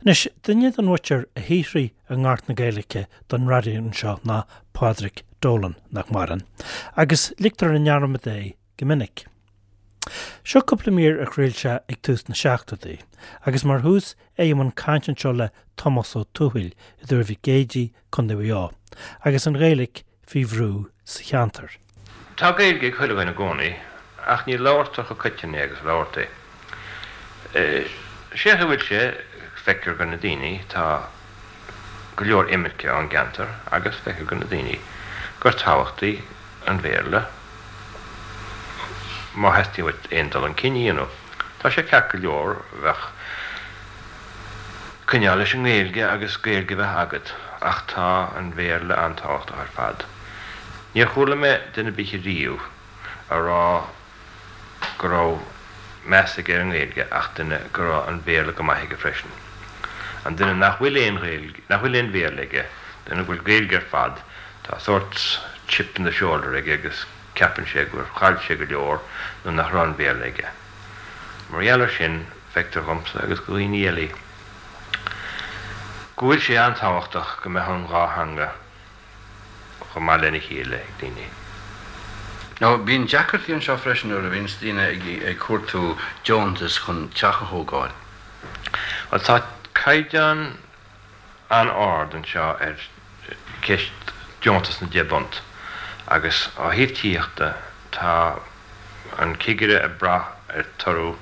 Anois, duine den mhuintir a shaothraigh i ngort na Gaeilge don raidió anseo ná Pádraig Dolan, nach maireann, agus ligtear i ndearmad é go minic. Seo cúpla mír a chraol sé ag tús na seachtóidí, agus mar thús é i mbun cainte anseo le Tomás Ó Tuathail i dTuar Mhic Éadaigh, Co. Mhaigh Eo, agus an Ghaeilge faoi bhrú sa cheantar. Tá Gaeilge ag chuile dhuine i gcónaí, ach ní labhartar chomh coiteann é agus a labhartaí. Sé a bhfuil sé, feictear go na daoine, tá go leor imirce ón gceantar agus feictear go na daoine gur tábhachtaí an Bhéarla má theastaíonn uait aon dul chun cinn a dhéanamh. Tá sé ceart go leor bheith coinneáil leis an nGaeilge agus Gaeilge a bheith agat ach tá an Bhéarla an-tábhachtach ar fad. Níor chuala mé duine ar bith ariamh a rá go raibh meas aige ar an nGaeilge ach duine go raibh an Béarla go maith aige freisin. An duine nach bhfuil aon Ghaeilge, nach bhfuil aon Bhéarla aige, duine go bhfuil Gaeilge ar fad, tá sórt chip in the shoulder aige agus ceapann sé gur chaill sé go leor nuair nach raibh an Béarla aige. Mar gheall ar sin, feictear dhomsa agus go dhaoine eile go bhfuil sé an-tábhachtach go mbeadh an dhá theanga chomh maith lena chéile ag daoine. Now, bíonn deacrachtaí anseo freisin nuair a bhíonns daoine ag cuartú deontas chun teach a thógáil. Bhuel, tá caighdeán an-ard anseo ar cheist deontas na deich bpunt agus ó thaobh tithíochta tá an cigire ag brath ar toradh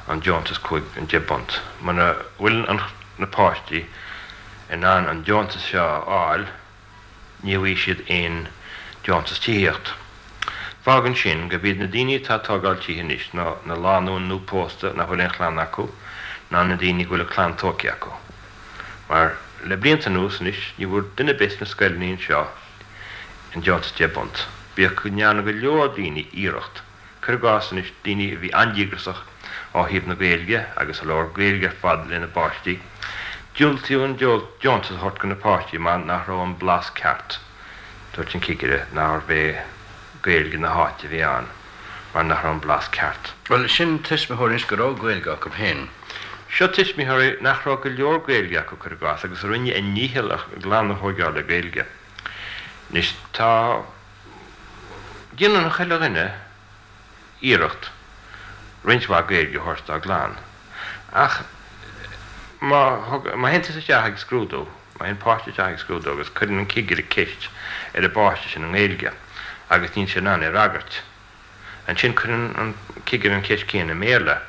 an deontas 5, an 10 bpunt. Muna bhfuil na páistí in ann an deontas seo a fháil ní bhfaighidh siad aon deontas tithíocht. Fágann sin gurb iad na daoine atá ag tógáil tithe anois ná na lánúin nuaphósta nach bhfuil aon chlann acu ná na daoine go bhfuil a clann tógtha acu. Mar le blianta anuas anois ní bhfuair duine ar bith sna scoileanna anseo an deontas 10 bpunt, bíodh go ndearna go leor daoine iarracht. Cuir i gcás anois daoine a bhí an-díograsach ó thaobh na Gaeilge agus a labhair Gaeilge ar fad lena bpáistí, diúltaíodh an deontas a thabhairt go na páistí mar nach raibh an blas ceart, dúirt an cigire nárbh é Gaeilge na háite a bhí ann mar nach raibh an blas ceart. Bhuel, sin tuismitheoirí anois go raibh Gaeilge acu féin. Seo tuismitheoirí nach raibh go leor Gaeilge acu, cuir i gcás, agus a rinne a ndícheall a gclann a thóigeáil le Gaeilge. Anois tá. Déanann chuile dhuine iarracht roinnt mhaith Gaeilge a thabhairt dá gclann. Ach má má théann tusa isteach ag scrúdú, má théann páiste isteach ag scrúdú agus cuireann an cigire ceist ar an bpáiste sin i nGaeilge agus níl sé in ann é a fhreagairt, Ansin cuireann an cigire an cheist chéanna i mBéarla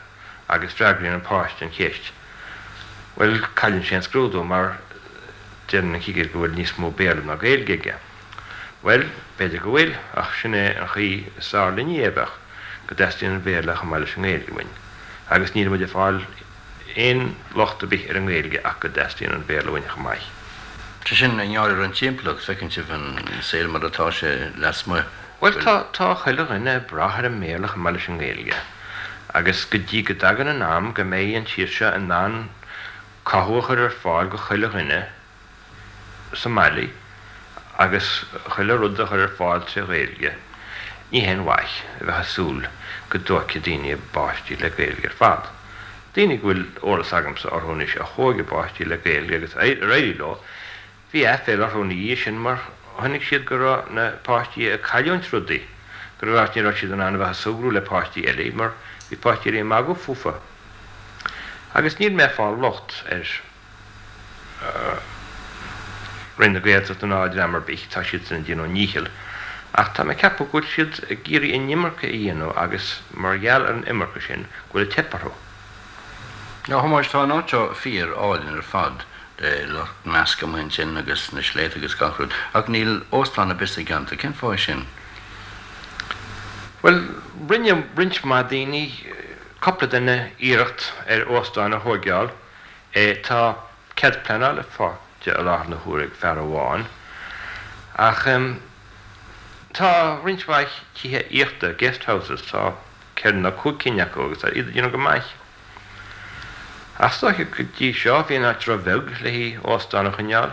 agus freagraíonn an páiste an cheist. Bhuel, cailleann sé an scrúdú mar deireann an cigire go bhfuil níos mó Béarla ná Gaeilge aige. Bhuel, b'fhéidir go bhfuil, ach sin é an chaoi is fearr linne é a bheadh, go dteastaíonn an Béarla chomh maith leis an nGaeilge uainn. Agus níl muid ag fáil aon locht ar bith ar an nGaeilge ach go dteastaíonn an Béarla uainn chomh maith. Sé sin, i ngeall ar an timpeallacht, feiceann sibh an saol mar atá sé lasmuigh. Bhuel, tá, tá chuile dhuine ag brath ar an mBéarla chomh maith leis an nGaeilge. Agus go dtí go dtagann an am go mbeidh an tír seo in ann cothú a chur ar fáil go chuile dhuine sa mbaile agus chuile rud a chur ar fáil tré Ghaeilge, ní haon mhaith a bheith ag súil go dtóigfidh daoine a bpáistí le Gaeilge ar fad. Daoine go bhfuil eolas agamsa orthu anois a thóig a bpáistí le Gaeilge agus ar éirigh leo, Bhí aiféala orthu ina dhiaidh sin mar chonaic siad go raibh na páistí ag cailliúint rudaí, go raibh, ní raibh siad in ann a bheith ag súgradh le páistí eile mar bhí páistí eile ag magadh fúthu. Agus níl mé ag fáil locht ar Roinn na Gaeltachta ná dream ar bith, tá siadsan ag déanamh a ndícheall, ach tá mé ag ceapadh go bhfuil siad ag iarraidh an iomarca a dhéanamh agus mar gheall ar an iomarca sin go bhfuil ag teip orthu. A Thomáis, tá an áit seo fíor álainn ar fad, le Loch Measc amuigh ansin agus na sléibhte agus gach rud, ach níl óstán ar bith sa gceantar. Cén fáth é sin? Bhuel, rinne roinnt mhaith daoine, cúpla duine, iarracht ar óstán a thóigeáil. Tá cead pleanála faighte i láthair na huaire ag fear amháin, ach tá roinnt mhaith tithe aíochta, guest houses, tá 4 nó 5 cinn acu agus tá iad ag déanamh go maith. Ach is dóiche go dtí seo bhí an áit ró-bheag le haghaidh óstán a choinneáil.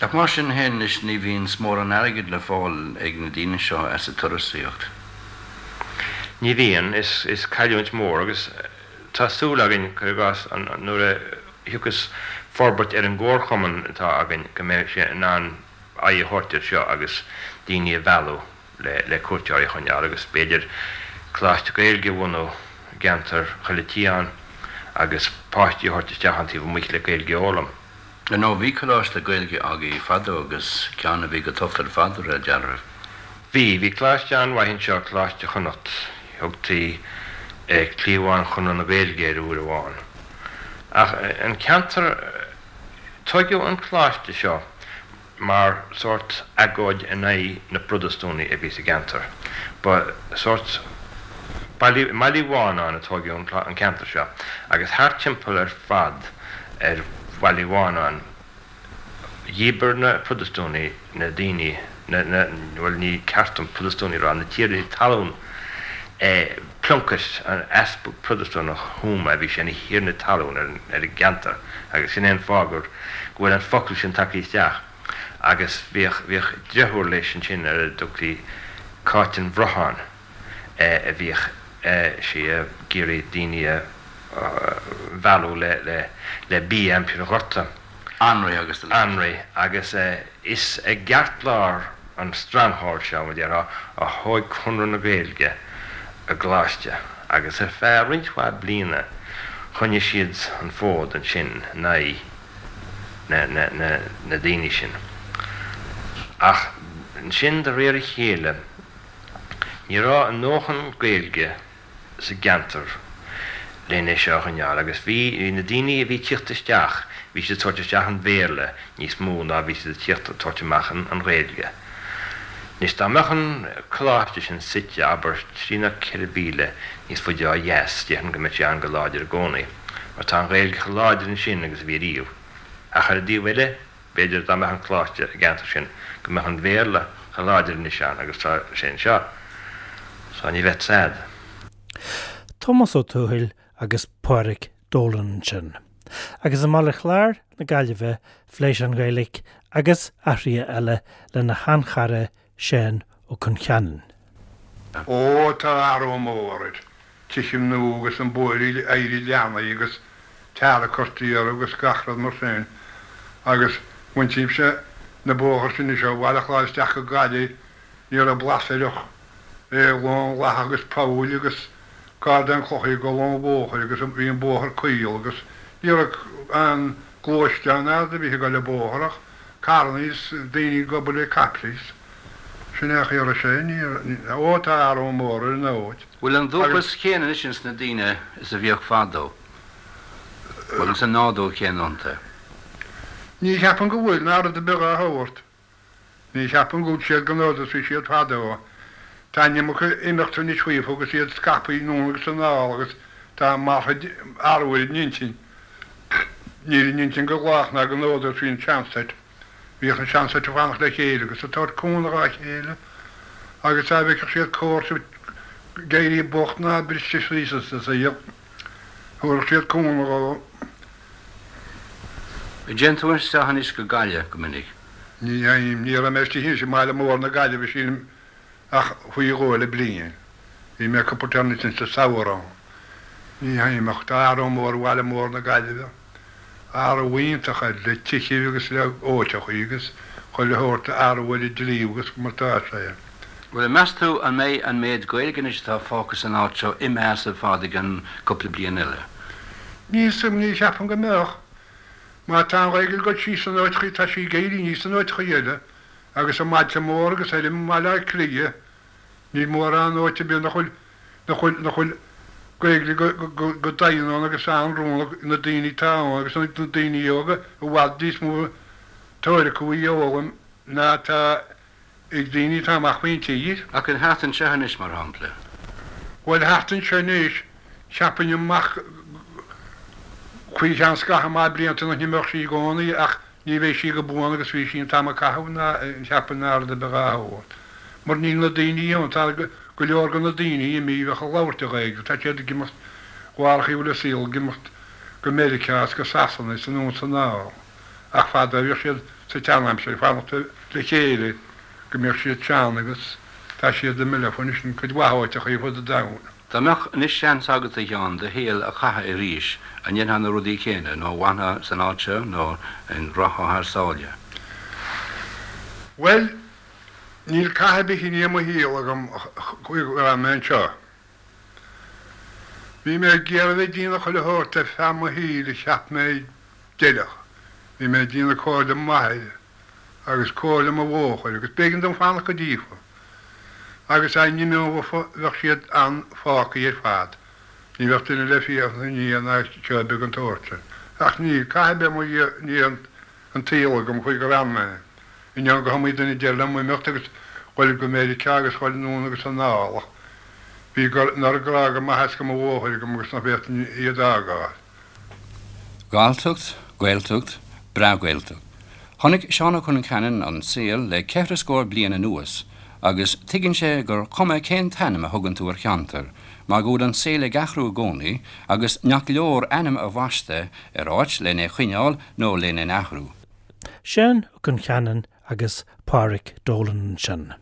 Ach mar sin féin anois ní bhíonns mórán airgid le fáil ag na daoine seo as an turasaíocht. Ní bhíonn. Is cailliúint mhór agus tá súil againn, cuir i gcás, nuair a. thiocfas forbairt ar an gcomharchumann atá againn go mbeidh sé in ann aghaidh a thabhairt air seo agus daoine a mhealladh le cuairteoirí a choinneáil agus b'fhéidir coláiste Gaeilge a bhunú i gceantar Choille Tiáin agus páistí a thabhairt isteach ón taobh amuigh le Gaeilge a fhoghlaim. Ar ndóigh, bhí coláiste Gaeilge agaibh fadó agus ceann a bhí go tofa ar fad, de réir dealraimh. Bhí. Bhí coláiste an-mhaith anseo, Coláiste Chonnacht. Thugtaí Cliabhán Chonradh na Gaeilge air uair amháin. Ach an ceantar, tóigeadh an coláiste seo mar sórt agóid in aghaidh na bProtastúnaigh a bhí sa gceantar. Ba sórt Baile Uí Mhánáin a tóigeadh an ceantar seo agus thart timpeall ar fad ar Bhaile Uí Mhánáin dhíbir na Protastúnaigh na daoine, na, na, bhuel ní ceart dom Protastúnaigh a rá, na tiarnaí talún, Plunkett, an easpag Protastúnach Thuama, bhí sé ina thiarna talún ar an gceantar agus sin é an fáth gur, go bhfuil an focal sin tagtha isteach. Agus bhíodh, bhíodh driotúr leis ansin ar a dtugtaí Cáit an Bhrotháin a bhíodh sí ag iarraidh daoine a mhealladh le, le, le bia aimsir an ghorta. Anraith agus a leithéid. Anraith agus is i gceartlár an stronghold seo, mar a déarfá, a thóig Conradh na Gaeilge a gcoláiste agus ar feadh roinnt mhaith bliana choinnigh siad an fód ansin in aghaidh na daoine sin. Ach ansin de réir a chéile ní raibh a ndóthain Gaeilge sa gceantar len é seo a choinneáil agus bhí na daoine a bhí ag tíocht isteach, bhí siad ag tabhairt isteach an Bhéarla níos mó ná bhí siad ag tíocht ag tabhairt amach an Ghaeilge. Anois dá mbeadh an coláiste sin suite, abair, trí nó 4 mhíle níos faide ó dheas, déarfainn go mbeadh sé ann go láidir i gcónaí, mar tá an Ghaeilge chomh láidir ansin agus a bhí riamh. Ach ar an dtaobh eile, B'fhéidir dá mbeadh an coláiste i gceantar sin go mbeadh an Bhéarla chomh láidir anois ann agus tá sé anseo. So ní bheadh sad. Tomás Ó Tuathail agus Pádraic Dolan ansin. Agus i mBaile Chláir na Gaillimhe phléigh sé an Ghaeilge agus athruithe eile lena sheanchara Seán Ó Concheanainn. Ó tá athrú mór air. Tithe nua agus an bóithre éirithe leathnaithe agus tar curtha orthu agus gach rud mar sin. Agus bhaintímse na bóthar sin anois ó Bhaile Chláir isteach go Gaillimh ní raibh blas air ach é lán lacha agus poill agus cardáin clocha ag dul ón bhóthair agus bhí an bóthar caol agus ní raibh aon gluaisteán ná rud ar bith ag dul an bóthar ach carrannaí is daoine ag obair le caiple is sin é a chaoi a raibh sé. Ní, ó tá athrú mór ar an áit. Bhfuil an dúchas céanna anois ins na daoine is a bhíodh fadó? Bhfuil an nádúr céanna iontu? Ní cheapaim go bhfuil, ná rud ar bith dhá shórt. Ní cheapaim go bhfuil siad den nádúr is bhí siad fadó. Tá an iomarca imeachta anois faofa agus iad scaipthe anonn agus anall agus tá martha athrú ar a n-intinn. Níl a n-intinn chomh lách ná den nádúr is bhí an seanset. Bhíodh an seanset ag fanacht le chéile agus ag tabhairt cúnamh dhá chéile agus dá bhfeicfeadh siad comharsa ag éirí bocht ná briste síos sa saol, thabharfadh siad cúnamh dhó. An dtéann tú isteach anois go Gaillimh go minic? Ní théim. Ní raibh mé istigh anois i mbaile mór na Gaillimhe sílim ach faoi dhó le bliain. Bhí mé cúpla téarma ansin sa samhradh ann. Ní théim ach tá athrú mór ar bhaile mór na Gaillimhe. Athrú iontach air le tithe agus le áiteachaí agus chuile shórt athrú ar an dlí agus mar tá sé. Bhuel, meas tú an mbeidh an méid Gaeilge anois atá fágtha san áit seo imithe as ar fad i gcionn cúpla bliain eile? Ní cheapaim go mbeadh. Má tá an Ghaeilge ag dul síos in áiteachaí tá sí ag éirí aníos in áiteachaí eile agus i mbailte móra agus ar i mBaile Átha Cliath níl mórán áit ar bith nach bhfuil nach bhfuil nach bhfuil Gaeilge go go go doimhin ann agus an-rún ag na daoine atá ann agus na daoine óga i bhfad níos mó tóir acu í a fhoghlaim ná atá ag daoine atá amach faoin tír. Ach an thart anseo anois, mar shampla? Bhuel, thart anseo anois, cheapfainn amach faoi cheann scaitheamh maith blianta nach n-imeodh sí i gcónaí ach ní bheidh sí go buan agus bhí sí an t-am a caitheadh ná cheapfainn ná rud ar bith dhá shórt. Mar níl na daoine ann, tá go leor de na daoine imithe a bheadh ag labhairt an Ghaeilge, tá siad ag imeacht bharr a chaoi a bhfuil an saol ag imeacht go Meiriceá is go Sasana is anonn is anall. Ach fadó bhíodh siad sa tseanaimsir ag fanacht le chéile go mbíodh siad sean agus tá siad imithe leofa anois in cuid mhaith áiteachaí ar fud an domhain. Dá mbeadh anois seans agat, a Sheáin, do shaol a chaitheamh arís, an ndéanfá na rudaí céanna, nó an bhfanfá san áit seo, nó an rachfá thar sáile? Bhuel, níl cath ar bith i ndiaidh mo shaol agam go raibh mé anseo. Bhí mé ag iarraidh bheith ag déanamh chuile shórt ar feadh mo shaoil a cheap mé d'fheilfeadh. Bhí mé ag déanamh comhairle m'athair agus comhairle mo mháthair agus b'éigean dom fanacht go díofa. Agus dá n-imeofa bheadh siad an-fhágthaí ar fad. Ní bheadh duine le féachaint ina ndiaidh ná seó beag den tsórt sin. Ach níl cath ar bith i ndiaidh an tsaoil agam chuig gur fhan mé. Ainneoin go hiomaí duine a deir liom imeacht agus dhul go Meiriceá agus dhul anonn agus anall ach bhí an oiread grá go m'athair is go mo mháthair agam agus nach bhféadfainn iad a fhágáil. Galltacht, Gaeltacht, breá-Ghaeltacht. Chonaic Seán Ó Concheanainn an saol le ceithre scór bliain anuas agus tuigeann sé gur cuma cén t-ainm a thugann tú ar cheantar mar go bhfuil an saol ag athrú i gcónaí agus nach leor ainm a bhaisteadh ar áit len é choinneáil nó len é athrú. Seán Ó Concheanainn agus Pádhraic Dolan ansin.